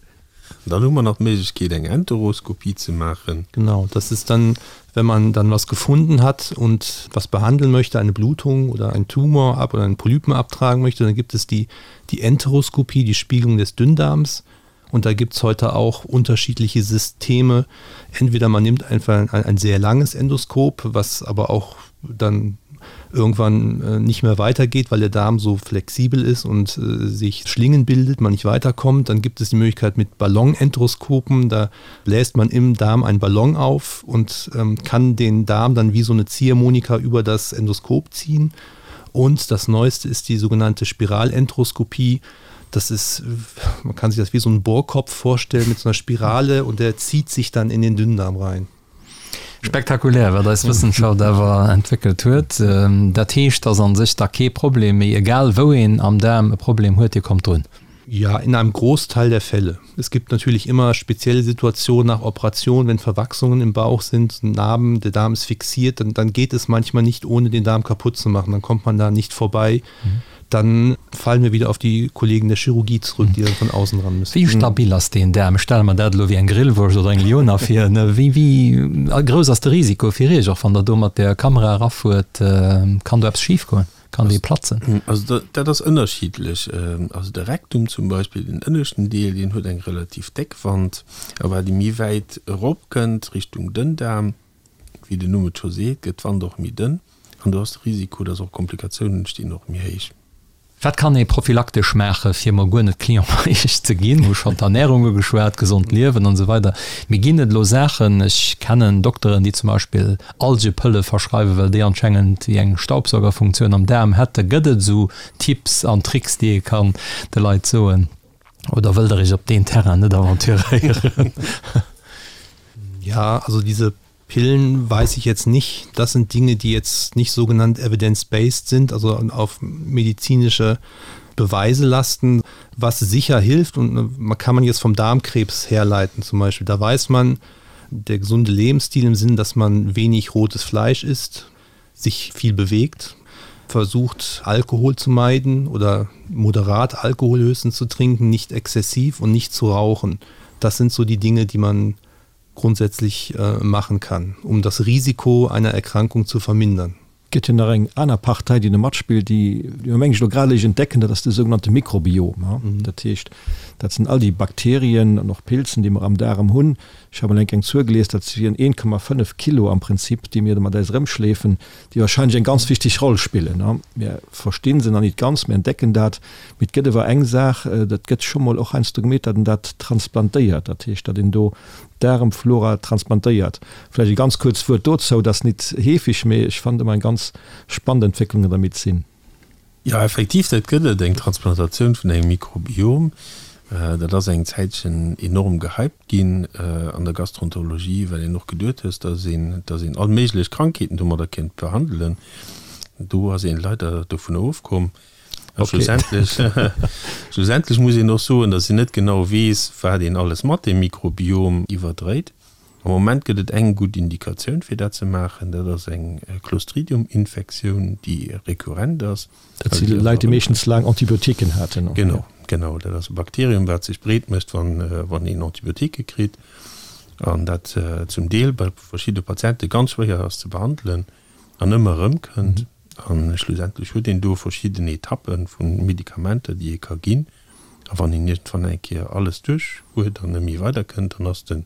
Dann hu mer nach d'Méiglechkeet eng Enteroskopie ze maachen. Genau, das ist dann, wenn man dann was gefunden hat und was behandeln möchte, eine Blutung oder einen Tumor ab oder einen Polypen abtragen möchte, dann gibt es die, die Enteroskopie, die Spiegelung des Dünndarms. Und da gibt es heute auch unterschiedliche Systeme. Entweder man nimmt einfach ein, ein sehr langes Endoskop, was aber auch dann irgendwann äh, nicht mehr weitergeht, weil der Darm so flexibel ist und äh, sich Schlingen bildet, man nicht weiterkommt. Dann gibt es die Möglichkeit mit Ballonenteroskopen, da bläst man im Darm einen Ballon auf und ähm, kann den Darm dann wie so eine Ziehharmonika über das Endoskop ziehen. Und das Neueste ist die sogenannte Spiralentroskopie. Das ist, man kann sich das wie so einen Bohrkopf vorstellen mit so einer Spirale und der zieht sich dann in den Dünndarm rein. Spektakulär, wat eis Wëssenschaft awer entwéckelt huet. Dat heescht, dass an sech da kee Problem méi, egal wou een am Daarm e Problem huet, Dir kommt drun? Ja, in einem Großteil der Fälle. Es gibt natürlich immer spezielle Situationen nach Operation, wenn Verwachsungen im Bauch sind, Narben, der Darm ist fixiert, dann, dann geht es manchmal nicht, ohne den Darm kaputt zu machen. Dann kommt man da nicht vorbei. Mhm. Dann fallen wir wieder auf die Kollegen der Chirurgie zurück, die dann von außen ran müssen. Wéi stabil ass deen Daarm? Ech stelle mer dat elo wéi eng Grillwurscht oder eng Liona vir. Wéi, wéi grouss ass de Risiko fir Iech, och wann Der do mat der Kamera erafuert? Kann do eppes schifgoen? Kann dee platzen? Also dat ass ënnerschiddlech. Also de Rektum zum Beispill, den ënneschten Deel, deen huet eng relativ déck Wand. A wat ee méi wäit eropkënnt, Richtung Dënndaarm, wéi den Numm et scho seet, gëtt d'Wand och méi dënn an do ass de Risiko, dass och Komplikatiounen entstinn, och méi héich. Wat kann ee prophylaktesch maachen, fir mol guer net Client bei Iech ze ginn? Hu schonn d'Ernärung ugeschwat, gesond Liewen an esou weider. Mee ginn et elo Saachen, ech kennen Dokteren, déi zum Beispill Algepëlle verschreiwen, well déi anschengend wéi eng Staubsaugerfunktioun am Daarm hätten. Gëtt et esou Tipps an Tricks, déi ee kann de Leit soen? Oder wëllt Der Iech op deen Terrain net aventuréieren? Ja, also diese Pillen weiß ich jetzt nicht. Das sind Dinge, die jetzt nicht sogenannt evidence-based sind, also auf medizinische Beweise lasten, was sicher hilft und man kann man jetzt vom Darmkrebs herleiten zum Beispiel. Da weiß man, der gesunde Lebensstil im Sinn, dass man wenig rotes Fleisch isst, sich viel bewegt, versucht Alkohol zu meiden oder moderat Alkohol höchstens zu trinken, nicht exzessiv und nicht zu rauchen. Das sind so die Dinge, die man grundsätzlich äh, machen kann, um das Risiko einer Erkrankung zu vermindern. Gëtt jo nach eng aner Partei, déi do matspillt, déi mir mengen ech elo grad eréischt entdecken, dat ass de sougenannte Mikrobiom. Dat heescht, dat sinn all déi Bakterien an och Pilzen, déi mer am Daarem hunn. Ech hat mol eng Kéier eng Zuel gelies, dat wieren 1,5 Kilo am Prinzip, déi mir do mat eis erëmschleefen, déi wahrscheinlech eng ganz wichteg Roll spillen. Mir versti se nach nit ganz, mir entdecken dat, mee et gëtt ewer eng Saach, dat gëtt scho mol och heiansdo gemeet, datt een dat transplantéiert, dat heescht, datt een do d'Daarmflora transplantéiert. Vläicht e ganz kuerzt Wuert dozou, dat ass nit heefeg, mee ech fannen et ëmmer eng ganz spannend Entwécklung an der Medezin. Jo, effektiv, dat gëtt et, eng Transplantatioun vun engem Mikrobiom. Dat ass eng Zäitchen enorm gehypt ginn an der Gastroenterologie, well een och geduet hues, dass een, dass een all méiglech Krankheeten domadder kéint behandelen. Do ass een leider dovun ofkomm. A schlussendlech, schlussendlech muss een och soen, dass een net genau weess, wat een alles mat deem Mikrobiom iwwerdréit. Am Moment gëtt et eng gutt Indikatioun, fir dat ze maachen, dat ass eng Clostridium-Infektioun, déi rekurrent ass. Dat si Leit, déi meeschtens laang Antibiotiquen haten. Genau, genau. Dat ass e Bakterium, wat sech breet mécht, wann een Antibiotiquë kritt an dat zum Deel bei verschidde Patiente ganz schwéier ass ze behandelen an ëmmer erëmkënnt. A schlussendlech huet een do verschidden Etappe vu Medikamenter, déi ee ka ginn. A wann een iergendwann eng Kéier alles duerch huet an net méi weiderkënnt, dann ass de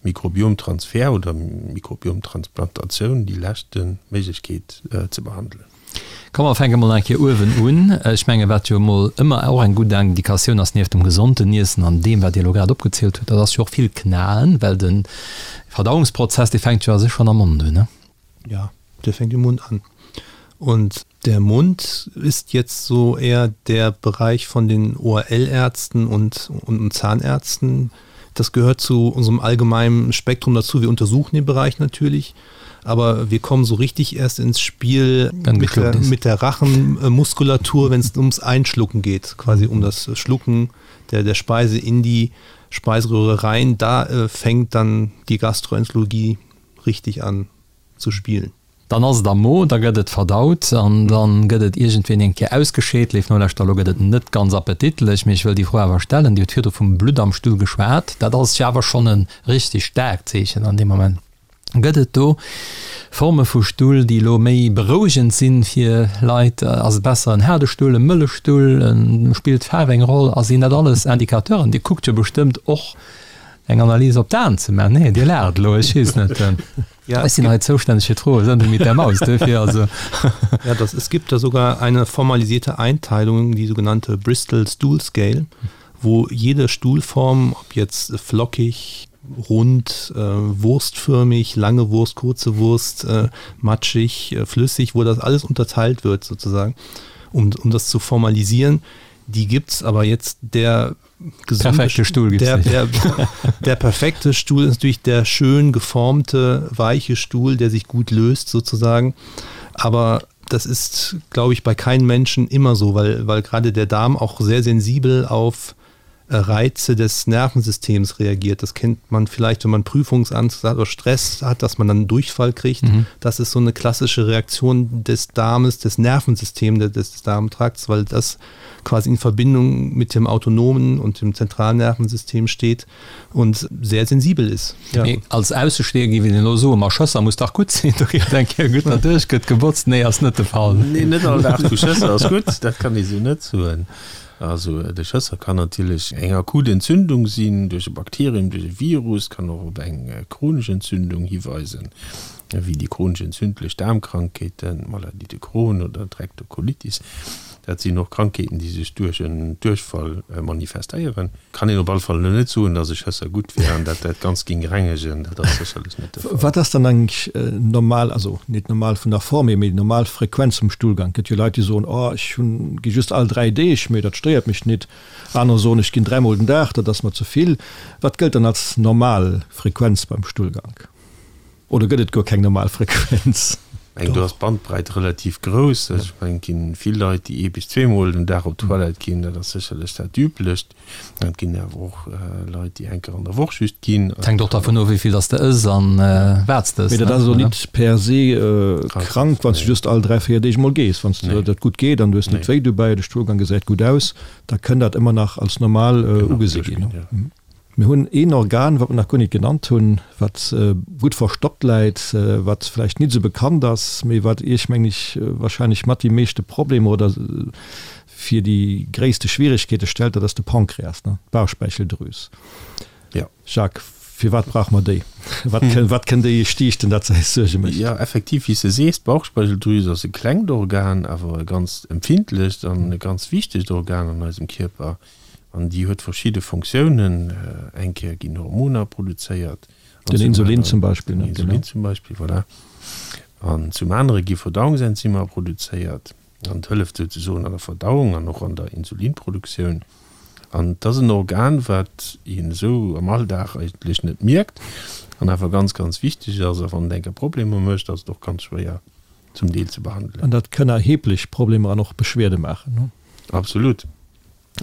Mikrobiomtransfer oder Mikrobiomtransplantatioun déi leschte Méiglechkeet ze behandelen. Komm mer fänke mol eng Kéier uewen un. Ech menge wat jo emol ëmmer och eng gutt Indikatioun ass, nieft dem gesonten Iessen an deem wat Dir elo grad opgezielt hutt, dat ass jo och vill knaen, well de Verdauungsprozess dee fänkt jo a sech schonn am Mond un, ne? Ja, der fängt im Mund an. Und der Mund ist jetzt so eher der Bereich von den ORL-Ärzten und, und Zahnärzten. Das gehört zu unserem allgemeinen Spektrum dazu. Wir untersuchen den Bereich natürlich, aber wir kommen so richtig erst ins Spiel mit der, mit der Rachenmuskulatur, wenn es ums Einschlucken geht, quasi um das Schlucken der, der Speise in die Speiseröhre rein. Da äh, fängt dann die Gastroenterologie richtig an zu spielen. Dann ass et am Mo, da gëtt et verdaut an da gëtt et iergendwéi eng Kéier ausgescheet. Léif Nolauschterer, elo gëtt et net ganz appetitlech, mee ech wëll déi Fro awer stellen. Dir hutt virdru vum Blutt am Stull geschwat. Dat ass jo awer schonn e richteg staarkt Zeechen an deem Moment. Gëtt et do Forme vu Stull, déi elo méi berouegend sinn fir Leit? Ass et besser en haarde Stull, e mëlle Stull? Spillt d'Faarf eng Roll? A sinn dat alles Indicateuren? Dir kuckt jo bestëmmt och eng Analys op d'Aen ze maachen. Nee, Dir laacht elo, ech weess net. Ja, ech sinn hei zoustänneg fir d'Froe Sendung mit der Maus, duerfir also. Ja, das, es gibt da sogar eine formalisierte Einteilung, die sogenannte Bristol Stool Scale, wo jede Stuhlform, ob jetzt flockig, rund, äh, wurstförmig, lange Wurst, kurze Wurst, äh, matschig, äh, flüssig, wo das alles unterteilt wird sozusagen, um, um das zu formalisieren. Die gibt's aber jetzt der perfekte Stuhl der, der, der perfekte Stuhl ist natürlich der schön geformte, weiche Stuhl, der sich gut löst sozusagen. Aber das ist, glaube ich, bei keinem Menschen immer so, weil, weil gerade der Darm auch sehr sensibel auf, äh, Reize des Nervensystems reagiert. Das kennt man vielleicht, wenn man Prüfungsangst hat oder Stress hat, dass man dann Durchfall kriegt. Mhm. Das ist so eine klassische Reaktion des Darmes, des Nervensystems des, des Darmtrakts, weil das quasi in Verbindung mit dem autonomen und dem zentralen Nervensystem steht und sehr sensibel ist. Ja. Nee, als Aussesteher gi den lo so ma Schësser muss dach gut sinn, do geet eng Kéier gutt derduerch gëtt gebotzt. Nee ass net de Fall. Nee, net all Dag vu Schësser ass gutt, dat kann ee sou net soen. Also de Schësser kann natierlech eng akut Entzündung sinn duerch e Bakterium, duerch e Virus, kann och op eng chronesch Entzündung hiweisen, wéi déi chronesch entzündlech Daarmkrankheeten, Maladie de Crohn oder d'Rektokolitis. Dat sinn och Krankheeten, déi sech duerch en Duerchfall manifestéieren. Kann een op alle Fall elo net soen, datt e Schësser gutt wär an dat dat Ganzt géing rengegen. Dat ass sécherlech net de Fall. Wat ass dann eigentlech normal, also net normal vun der Form hier, mee déi normal Frequenz vum Stullgang? Et gëtt jo Leit, déi soen, oh ech hunn, gi just all 3 Deeg, mee dat stéiert mech net. Anerer soen, ech ginn dräimol den Dag, dat ass mer ze vill. Wat gëllt dann als normal Frequenz beim Stullgank? Oder gëtt et guer keng normal Frequenz? Eng, do ass d'Bandbreit relativ grouss. Ech mengen, et ginn vill Leit, déi ee bis zweemol den Dag op d'Toilette ginn. Dat ass sécherlech dat Üblecht. Et ginn awer och Leit, déi eng Kéier an der Woch just ginn. Et hänkt och dervun of, wéi vill dass de ëss an wat s de ëss. Mee dat ass elo nit per se krank, wann s de just all 3, 4 Deeg emol gees. Wann s de dat gutt geet an du hues net wéi dobäi, de Stullgang gesäit gutt aus, da kënn dat ëmmer nach als normal ugesi ginn. Mir hunn een Organ, wat mer nach guer nit genannt hunn, wat gutt verstoppt läit, wat vläicht nit esou bekannt ass, mee wat Iech, mengen ech, wahrscheinlech mat déi meeschte Problemer oder fir déi gréisste Schwierigkeete stellt, dat ass de Pankreas, ne, d'Bauchspeicheldrüs. Jo. Jacques, firwat brauche mer déi? Wat kënn, wat kënn déi stiichten, dat se eis Suerge mécht? Jo, effektiv, wéi s de sees, d'Bauchspeicheldrüs ass e klengt Organ, awer e ganz empfindlecht an e ganz wichtegt Organ an eisem Kierper. An déi huet verschidde Fonctiounen. Eng Kéier ginn Hormoner produzéiert. Den Insulin zum Beispill. Den Insulin zum Beispill, voilà. An zum anere gi Verdauungsenzymer produzéiert. An et hëlleft souzesoen an der Verdauung an och an der Insulinproduktioun. An et ass en Organ, wat een esou am Alldag eigentlech net mierkt an awer ganz, ganz wichteg ass. A wann et eng Kéier Problemer mécht, ass et och ganz schwéier zum Deel ze behandelen. An dat kënn erheblech Problemer an och Beschwerde maachen, ne? Absolut.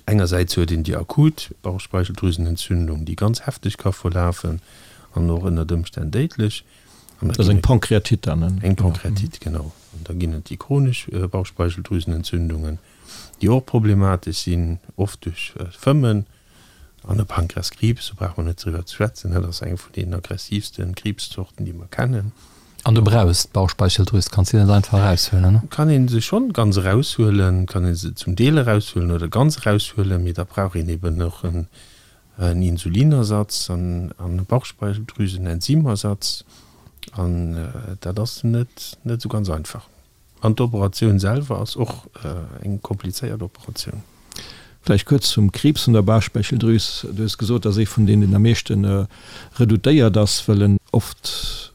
Engersäits huet een déi akut Bauchspeicheldrüsenentzündung, déi ganz hefteg ka verlafen an och ënnert Ëmstänn déidlech. An da ginn et. Dat ass eng Pankreatite dann, ne? Eng Pankreatite, genau. An da ginn et déi chronesch Bauchspeicheldrüsenentzündungen, déi och problematesch sinn, oft duerch Fëmmen. An e Pankreaskriibs, do brauche mer net driwwer ze schwätzen, dat ass eng vun deenen aggressiivste Kriibszorten, déi mer kennen. An du brauchs d'Bauchspeicheldrüs, kanns se net einfach eraushuelen, ne? Kann ee se schonn ganz eraushuelen, kann ee se zum Deel eraushuelen oder ganz eraushuelen, mee da brauch een eben och en Insulinersatz an e Bauchspeicheldrüsenenzymersatz an dat ass net net esou ganz einfach. An d'Operatioun selwer ass och eng komplizéiert Operatioun. Vläicht kuerz zum Kriibs vun der Bauchspeicheldrüs. Du hues gesot, dat ass ee vun deenen, deen am meeschte redoutéiert ass, well en oft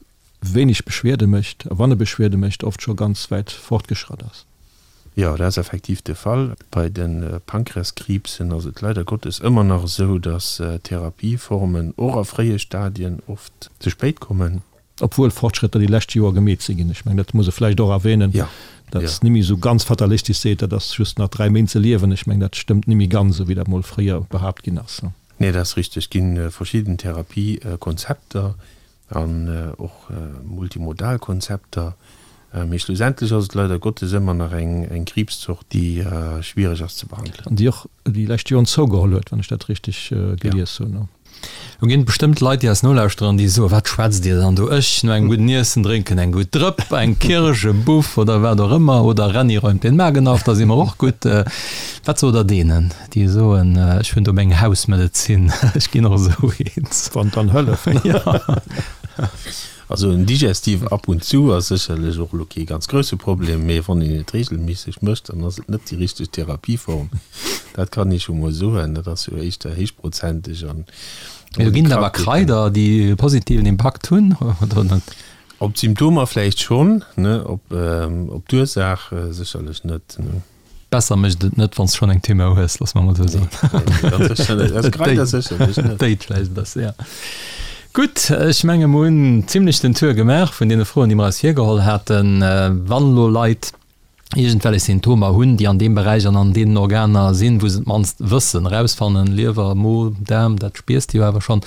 wéineg Beschwierde mécht, a wann e Beschwierde mécht, oft scho ganz wäit fortgeschratt ass. Jo, dat ass effektiv de Fall. Bei de Pankreaskriibsen ass et leider Gottes ëmmer nach esou, dass Therapieformen och a fréie Stadien oft ze spéit kommen. Obwuel Fortschrëtter déi lescht Joer gemeet si ginn. Ech mengen, dat muss e vläicht och erwähnen, datt nimmi esou ganz fatalistisch seet, dat ass just nach 3 Méint ze liewen. Ech mengen, dat stëmmt nimmi ganz, esou wéi dat mol fréier behaapt ginn ass. Nee, dat ass richteg. Et gi verschidden Therapiekonzepter an och multimodal Konzepter. Mee schlussendlech ass et leider Gottes ëmmer nach eng Kriibszort, déi schwiereg ass ze behandelen. An déi och déi lescht Joren zougeholl huet, wann ech dat richteg gelies hunn. Lo ginn et bestëmmt Leit, déi eis nolauschteren an déi soen, Wat schwätzt Dir dann do? Ech, no engem gudden Iessen, drénken eng gutt Drëpp, eng Kirsch, e Buff oder wat och ëmmer, oder Renny räumt den Magen auf, da si mer och gutt. Wat sot Der deenen, déi soen, Ech hunn do meng Hausmedezin, ech ginn och esou eens? Wann dann hëlleft. Jo. Also en Digestif ab und zu ass sécherlech och elo kee ganz grousse Problem, mee wann een et regelméisseg mécht, dann ass et net déi richteg Therapieform. Dat kann ee scho mol soen. Dat ass jo éischter héichprozenteg an. Mee do ginn et awer Kraider, déi e positiven Impakt hunn, oder net? Op d'Symptomer vläicht schonn, ne, op d'Ursaach sécherlech net, ne. Besser mécht et net, wann s de schonn eng Tumeur hues, loosse mer emol esou soen. Nee, ganz sécher net. Also Kraider sécherlech net. Et déit vläicht e bësse, ja. Gutt, ech menge mer hunn zimlech den Tour gemaach vun deene Froen, déi mer eis virgeholl haten. Wann elo Leit iergendwellech Symptomer hunn, déi an deem Beräich an an deenen Organer sinn, wou se et mannst wëssen, erausfannen, Liewer, Mo, Daarm, dat spiers de jo awer schonn.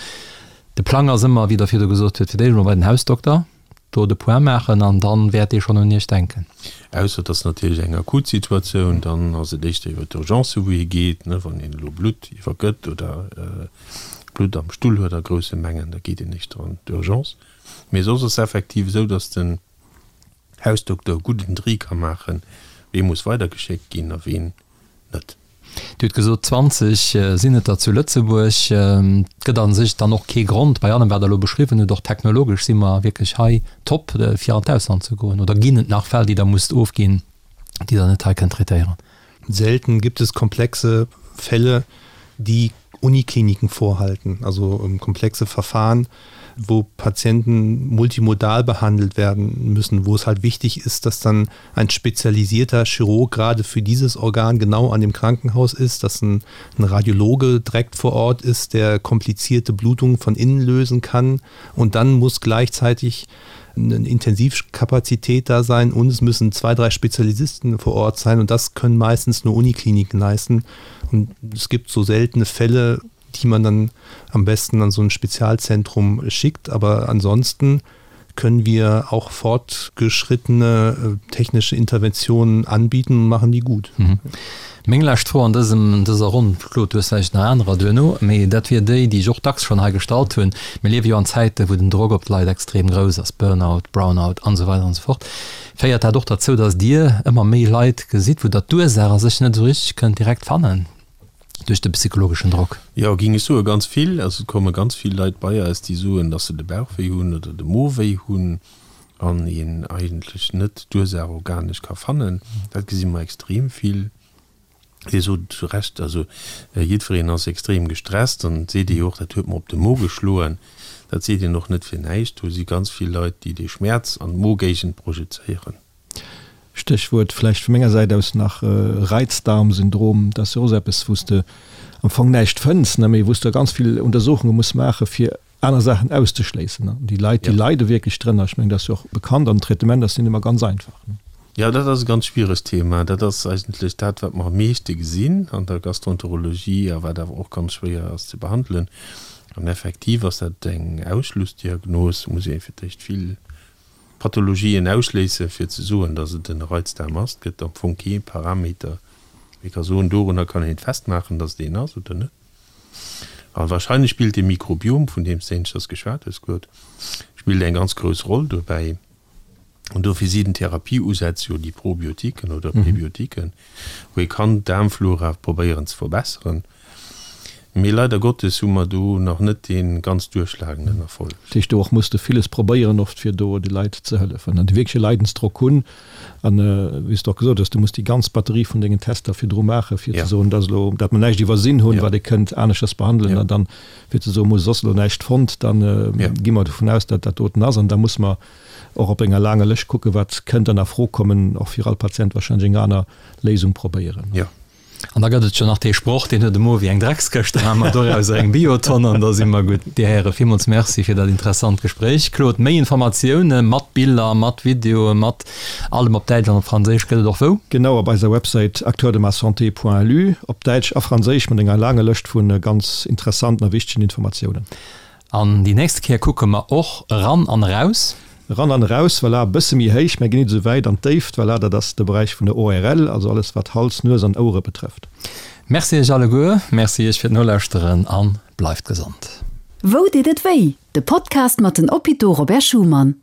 De Plang ass ëmmer, wéi Der virdu gesot hutt, fir d'éischt emol bei den Hausdokter, do de Point maachen an dann wäert dee schonn un Iech denken. Ausser et ass natierlech eng akut Situatioun, dann ass et éischter iwwer d'Urgence wou ee geet, ne, wann een elo Blutt iwwergëtt oder Blutt am Stull huet a grousse Mengen, da geet een éischter an d'Urgence. Mee soss ass effektiv esou, datt den Hausdokter e gudden Tri ka maachen, wee muss weidergeschéckt ginn a ween net. Dir hutt gesot, 20 sinn et der zu Lëtzebuerg. Et gëtt a sech dann och kee Grond, bei allem wat Der elo beschriwwen hutt, och technologesch si mer wierklech hei top, fir an d'Ausland ze goen. Oder ginn et nach Fäll, déi Der musst ofginn, déi Der net hei kënnt traitéieren? Selten gibt es komplexe Fälle, die Unikliniken vorhalten, also komplexe Verfahren, wo Patienten multimodal behandelt werden müssen, wo es halt wichtig ist, dass dann ein spezialisierter Chirurg gerade für dieses Organ genau an dem Krankenhaus ist, dass ein, ein Radiologe direkt vor Ort ist, der komplizierte Blutungen von innen lösen kann und dann muss gleichzeitig eine Intensivkapazität da sein und es müssen zwei, drei Spezialisten vor Ort sein und das können meistens nur Unikliniken leisten. Und es gibt so seltene Fälle, die man dann am besten an so ein Spezialzentrum schickt, aber ansonsten können wir auch fortgeschrittene äh, technische Interventionen anbieten und machen die gut. Mhm. Meng lescht Fro an dësem, dëser Ronn, Claude, du hues vläicht nach anerer duerno, mee dat wier déi, déi ech och dacks schonn hei gestallt hunn. Mir liewe jo an Zäiten, wou den Drock op d'Leit extrem grouss ass, Burnout, Brownout an esou weider an esou fort. Féiert dat och derzou, datt Dir ëmmer méi Leit gesitt, wou Der d'Ursaach a sech net esou richteg kënnt direkt fannen duerch de psychologeschen Drock? Jo, géing ech soen, ganz vill. Also et komme ganz vill Leit bei eis, déi soen, datt se de Bauch wéi hunn oder de Mo wéi hunn an een eigentlech net d'Ursaach organesch ka fannen. Dat gesi mer extrem vill. Dir sot et zu Recht, also jiddwereen ass extrem gestresst an et seet ee jo och, dat huet mer op de Mo geschloen. Dat seet een och net fir näischt. Do si ganz vill Leit, déi dee Schmäerz an d'Mogéigend projezéieren. Stéchwuert vläicht vu menger Säit aus nach Reizdarmsyndrom. Dat ass jo och esou eppes, wou s de am Fong näischt fënns, ne, mee wou s de ganz vill Untersuchunge muss maache fir aner Saachen auszeschléissen. An déi Leit, déi leide wierklech drënner. Ech mengen, dat ass jo och bekannt an den Traitement ass net ëmmer ganz einfach. Jo, dat ass e ganz schwieregt Thema. Dat ass eigentlech dat, wat mer am meeschte gesinn an der Gastroenterologie a wat awer och ganz schwéier ass ze behandelen. An effektiv ass dat eng Ausschlussdiagnos. Do muss ee fir d'éischt vill Pathologien ausschléissen, fir ze soen, datt et en Reizdarm ass. Et gëtt am Fong kee Parameter, wou ee ka soen, dorunner kann een et festmaachen, datt et een ass oder net. A wahrscheinlech spillt de Mikrobiom, vun deem s de éineschters geschwat hues, Claude, spillt eng ganz grouss Roll dobäi. An dofir si den Therapie-Usätz jo déi Probiotiken oder Präbiotiken, wou ee kann d'Daarmflora probéieren ze verbesseren. Mee leider Gottes hu mer do nach net dee ganz duerchschlagenden Erfolg. Dat heescht, do och muss de villes probéieren oft, fir do de Leit ze hëllefen an déi wierklech e Leidensdrock hunn. An wéi s de och gesot hues, du muss déi ganz Batterie vun dengen Tester virdru maachen, fir ze soen, dat ass elo, dat mer näischt iwwersinn hunn, wat ee kënnt aneschters behandelen. An dann, fir ze soen, muss soss elo näischt fonnt, da gi mer dovun aus, datt dat doten ass. An da muss mer och op enger laanger Lëscht kucken, wat kënnt dann a Fro kommen, och fir all Patient wahrscheinlech eng aner Léisung probéieren. An da gëtt et jo nach dee Sproch, deen huet e Mo wéi eng Dreckskëscht, da maache mer dorauser eng Biotonn an da si mer gutt. Dir Häre, villmools Merci fir dat interessant Gespréich. Claude, méi Informatioune mat Biller, mat Videoe, mat allem op Däitsch an op Franséisch gëtt et och wou? Genau, op eiser Websäit acteursdemasanté.lu, op Däitsch a Franséisch, mat enger laanger Lëscht vu ganz interessanten a wichtegen Informatiounen. An déi nächste Kéier kucke mer och eran an eraus. Eran an eraus, voilà, e bësse méi héich, mä ginn nit esou wäit an d'Déift, voilà, dat ass de Beräich vun der ORL, also alles wat Hals, Nues an Ouere betrëfft. Merci iech alleguer, merci iech fir d'Nolauschteren a bleift gesond. Wou deet et wéi? De Podcast mat den Hôpitaux Robert Schuman.